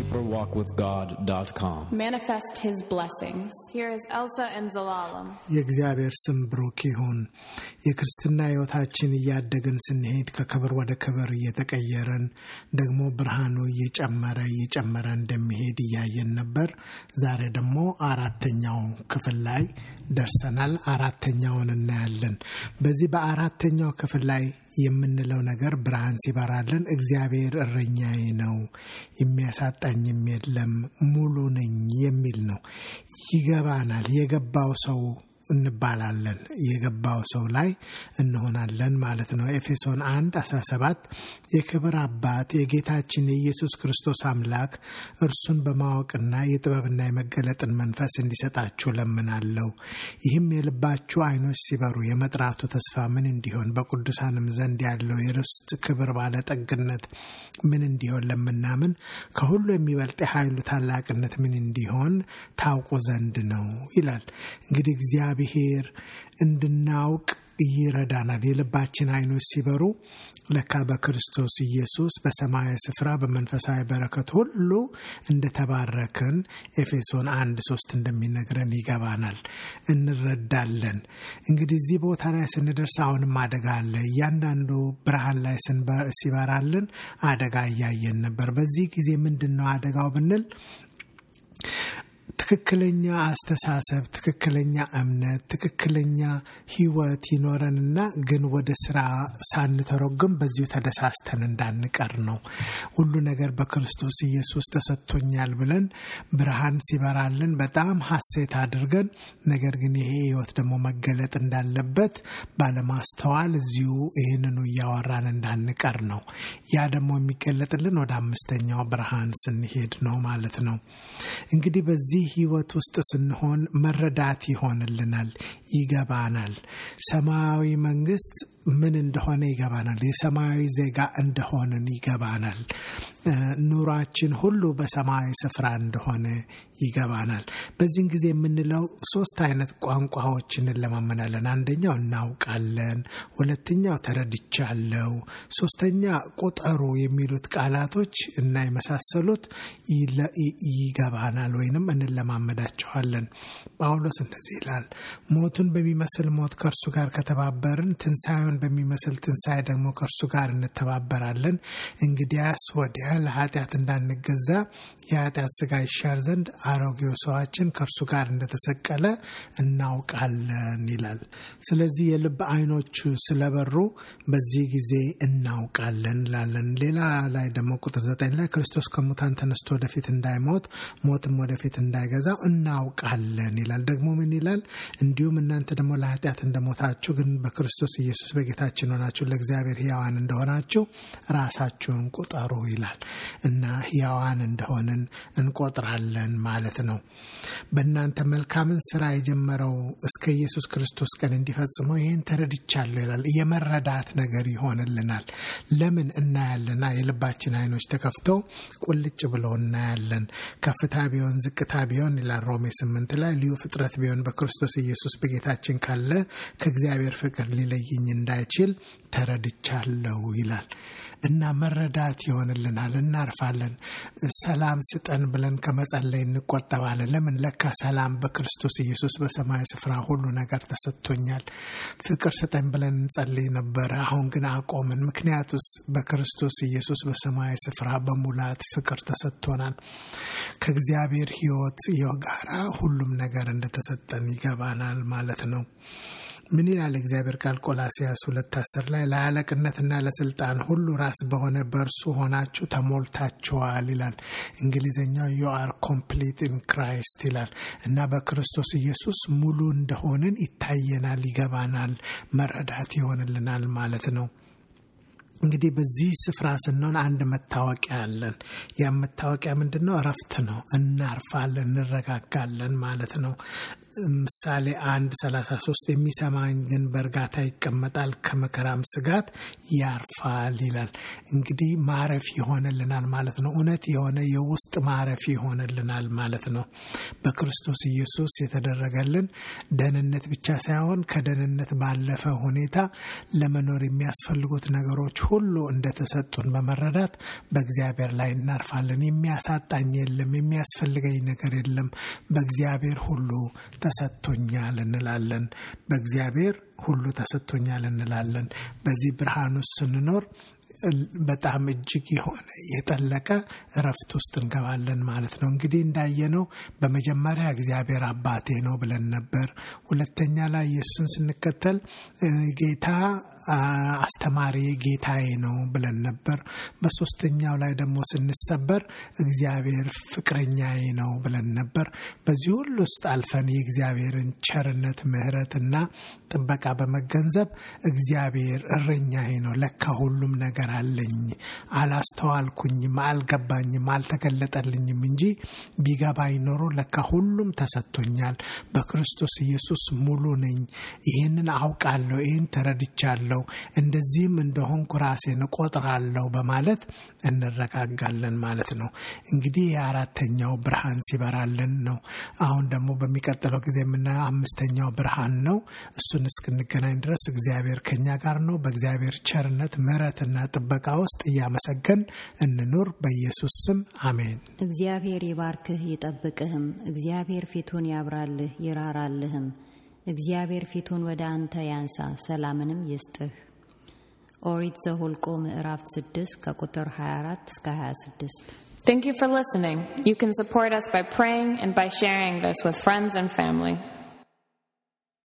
deeperwalkwithgod.com. Manifest His blessings. Here is Elsa and Zelalem. የእግዚአብሔር ስም ብሩክ ይሁን። የክርስትና ሕይወታችን እያደገን ስንሄድ ከክብር ወደ ክብር እየተቀየረን ደግሞ ብርሃኑ እየጨመረ እንደሚሄድ እያየን ነበር። ዛሬ ደግሞ አራተኛው ክፍል ላይ ደርሰናል። አራተኛውን እናያለን። በዚህ በአራተኛው ክፍል ላይ የምንለው ነገር ብርሃን ሲበራልን እግዚአብሔር እረኛዬ ነው የሚያሳጣኝም የለም ሙሉ ነኝ የሚል ነው። ይገባናል። የገባው ሰው እንባላለን። የገባው ሰው ላይ እንሆናለን ማለት ነው። ኤፌሶን 1:17 የክብር አባት የጌታችን የኢየሱስ ክርስቶስ አምላክ እርሱን በማወቅና የጥበብና የመገለጥን መንፈስ እንዲሰጣችሁ ለምናለሁ። ይህም የልባችሁ አይኖች ሲበሩ የመጥራቱ ተስፋ ምን እንዲሆን በቅዱሳንም ዘንድ ያለው የርስት ክብር ባለጠግነት ምን እንዲሆን ለምናምን ከሁሉ የሚበልጥ ኃይሉ ታላቅነት ምን እንዲሆን ታውቁ ዘንድ ነው ይላል። እንግዲህ እግዚአብሔር እንድናውቅ ይረዳናል። የልባችን አይኖች ሲበሩ ለካ በክርስቶስ ኢየሱስ በሰማያዊ ስፍራ በመንፈሳዊ በረከት ሁሉ እንደተባረክን ኤፌሶን 1:3 እንደሚነግረን ይገባናል፣ እንረዳለን። እንግዲህ እዚህ ቦታ ላይ ስንደርስ አሁንም አደጋ አለ። እያንዳንዱ ብርሃን ላይ ሲበራልን አደጋ እያየን ነበር። በዚህ ጊዜ ምንድነው አደጋው ብንል ትክክለኛ አስተሳሰብ፣ ትክክለኛ እምነት፣ ትክክለኛ ህይወት ይኖረንና ግን ወደ ስራ ሳንተረጉም በዚሁ ተደሳስተን እንዳንቀር ነው። ሁሉ ነገር በክርስቶስ ኢየሱስ ተሰጥቶኛል ብለን ብርሃን ሲበራልን በጣም ሐሴት አድርገን ነገር ግን ይሄ ህይወት ደግሞ መገለጥ እንዳለበት ባለማስተዋል እዚሁ ይሄንኑ ያወራን እንዳንቀር ነው። ያ ደግሞ የሚገለጥልን ወደ አምስተኛው ብርሃን ስንሄድ ነው ማለት ነው። እንግዲህ በዚህ ህይወት ውስጥ ስንሆን መረዳት ይሆንልናል፣ ይገባናል። ሰማያዊ መንግስት ምን እንደሆነ ይገባናል። የሰማያዊ ዜጋ እንደሆነን ይገባናል። ኑሯችን ሁሉ በሰማያዊ ስፍራ እንደሆነ ይገባናል። በዚህን ጊዜ የምንለው 3 አይነት ቋንቋዎችን እንለማመናለን። አንደኛው እናውቃለን፣ ሁለተኛው ተረድቻለሁ፣ ሶስተኛ ቁጠሩ የሚሉት ቃላቶች እና የመሳሰሉት ይገባናል ወይንም እንለማመዳቸዋለን። ጳውሎስ እንደዚህ ይላል፣ ሞቱን በሚመስል ሞት ከእርሱ ጋር ከተባበርን ትንሣኤውን በሚመስል ትንሣኤ ደግሞ ከእርሱ ጋር እንተባበራለን። እንግዲያስ ወዲያ ለኃጢአት እንዳንገዛ የኃጢአት ሥጋ ይሻር ዘንድ አሮጌው ሰዋችን ከእርሱ ጋር እንደተሰቀለ እናውቃለን ይላል። ስለዚህ የልብ አይኖቹ ስለበሩ በዚህ ጊዜ እናውቃለን ላለን። ሌላ ላይ ደግሞ ቁጥር 9 ላይ ክርስቶስ ከሙታን ተነስቶ ወደፊት እንዳይሞት ሞትም ወደፊት እንዳይገዛው እናውቃለን ይላል። ደግሞ ምን ይላል? እንዲሁም እናንተ ደግሞ ለኃጢአት እንደሞታችሁ ግን በክርስቶስ ኢየሱስ በጌታችን ሆናችሁ ለእግዚአብሔር ሕያዋን እንደሆናችሁ ራሳችሁን ቁጠሩ ይላል። እና ሕያዋን እንደሆንን እንቆጥራለን ማለት ነው። በእናንተ መልካምን ስራ የጀመረው እስከ ኢየሱስ ክርስቶስ ቀን እንዲፈጽመው ይህን ተረድቻለሁ ይላል። የመረዳት ነገር ይሆንልናል። ለምን እናያለና የልባችን አይኖች ተከፍተው ቁልጭ ብለው እናያለን። ከፍታ ቢሆን ዝቅታ ቢሆን ይላል ሮሜ 8 ላይ ልዩ ፍጥረት ቢሆን በክርስቶስ ኢየሱስ በጌታችን ካለ ከእግዚአብሔር ፍቅር ሊለየኝ እንዳይችል ተረድቻለሁ ይላል። እና መረዳት ይሆንልናል። እናርፋለን። ሰላም ስጠን ብለን ከመጸለይ እንቆጠባለን። ለምን? ለካ ሰላም በክርስቶስ ኢየሱስ በሰማይ ስፍራ ሁሉ ነገር ተሰጥቶኛል። ፍቅር ስጠን ብለን እንጸልይ ነበር፣ አሁን ግን አቆምን። ምክንያቱስ በክርስቶስ ኢየሱስ በሰማይ ስፍራ በሙላት ፍቅር ተሰጥቶናል። ከእግዚአብሔር ሕይወት ጋራ ሁሉም ነገር እንደተሰጠን ይገባናል ማለት ነው። ምን ይላል እግዚአብሔር ቃል? ቆላስይስ 2:10 ላይ ለአለቅነትና ለስልጣን ሁሉ ራስ በሆነ በእርሱ ሆናችሁ ተሞልታችኋል ይላል። እንግሊዘኛው you are complete in Christ ይላል። እና በክርስቶስ ኢየሱስ ሙሉ እንደሆንን ይታየናል፣ ይገባናል፣ መረዳት ይሆንልናል ማለት ነው። እንግዲህ በዚህ ስፍራ ስንሆን አንድ መታወቂያ አለን። ያ መታወቂያ ምንድነው? እረፍት ነው። እናርፋለን፣ እንረጋጋለን ማለት ነው። ምሳሌ 1:33 የሚሰማኝ ግን በእርጋታ ይቀመጣል ከመከራም ስጋት ያርፋል ይላል። እንግዲህ ማረፍ ይሆንልናል ማለት ነው። እውነት የሆነ የውስጥ ማረፍ ይሆንልናል ማለት ነው። በክርስቶስ ኢየሱስ የተደረገልን ደህንነት ብቻ ሳይሆን ከደህንነት ባለፈ ሁኔታ ለመኖር የሚያስፈልጉት ነገሮች ሁሉ እንደተሰጡን በመረዳት በእግዚአብሔር ላይ እናርፋለን። የሚያሳጣኝ የለም፣ የሚያስፈልገኝ ነገር የለም፣ በእግዚአብሔር ሁሉ ተሰጥቶኛል እንላለን። በእግዚአብሔር ሁሉ ተሰጥቶኛል እንላለን። በዚህ ብርሃን ውስጥ ስንኖር በጣም እጅግ የሆነ የጠለቀ እረፍት ውስጥ እንገባለን ማለት ነው። እንግዲህ እንዳየነው በመጀመሪያ እግዚአብሔር አባቴ ነው ብለን ነበር። ሁለተኛ ላይ ኢየሱስን ስንከተል ጌታ አስተማሪ ጌታዬ ነው ብለን ነበር። በሶስተኛው ላይ ደግሞ ስንሰበር እግዚአብሔር ፍቅረኛዬ ነው ብለን ነበር። በዚህ ሁሉ ውስጥ አልፈን የእግዚአብሔርን ቸርነት ምሕረትና ጥበቃ በመገንዘብ እግዚአብሔር እረኛዬ ነው፣ ለካ ሁሉም ነገር አለኝ፣ አላስተዋልኩኝም፣ አልገባኝም፣ አልተገለጠልኝም እንጂ ቢገባኝ ኖሮ ለካ ሁሉም ተሰጥቶኛል፣ በክርስቶስ ኢየሱስ ሙሉ ነኝ፣ ይሄንን አውቃለሁ፣ ይሄን ተረድቻለሁ፣ እንደዚህም እንደሆንኩ ራሴን እቆጥራለሁ በማለት እንረጋጋለን ማለት ነው። እንግዲህ የአራተኛው ብርሃን ሲበራልን ነው። አሁን ደግሞ በሚቀጥለው ጊዜ የምናየው አምስተኛው ብርሃን ነው። እሱን እስክንገናኝ ድረስ እግዚአብሔር ከኛ ጋር ነው። በእግዚአብሔር ቸርነት ምሕረትና ጥበቃ ውስጥ እያመሰገን እንኑር። በኢየሱስ ስም አሜን። እግዚአብሔር ይባርክህ ይጠብቅህም። እግዚአብሔር ፊቱን ያብራልህ ይራራልህም። እግዚአብሔር ፊቱን ወደ አንተ ያንሳ ሰላምንም ይስጥህ። ኦሪት ዘኍልቍ ምዕራፍ 6 ከቁጥር 24 እስከ 26። Thank you for listening. You can support us by praying and by sharing this with friends and family.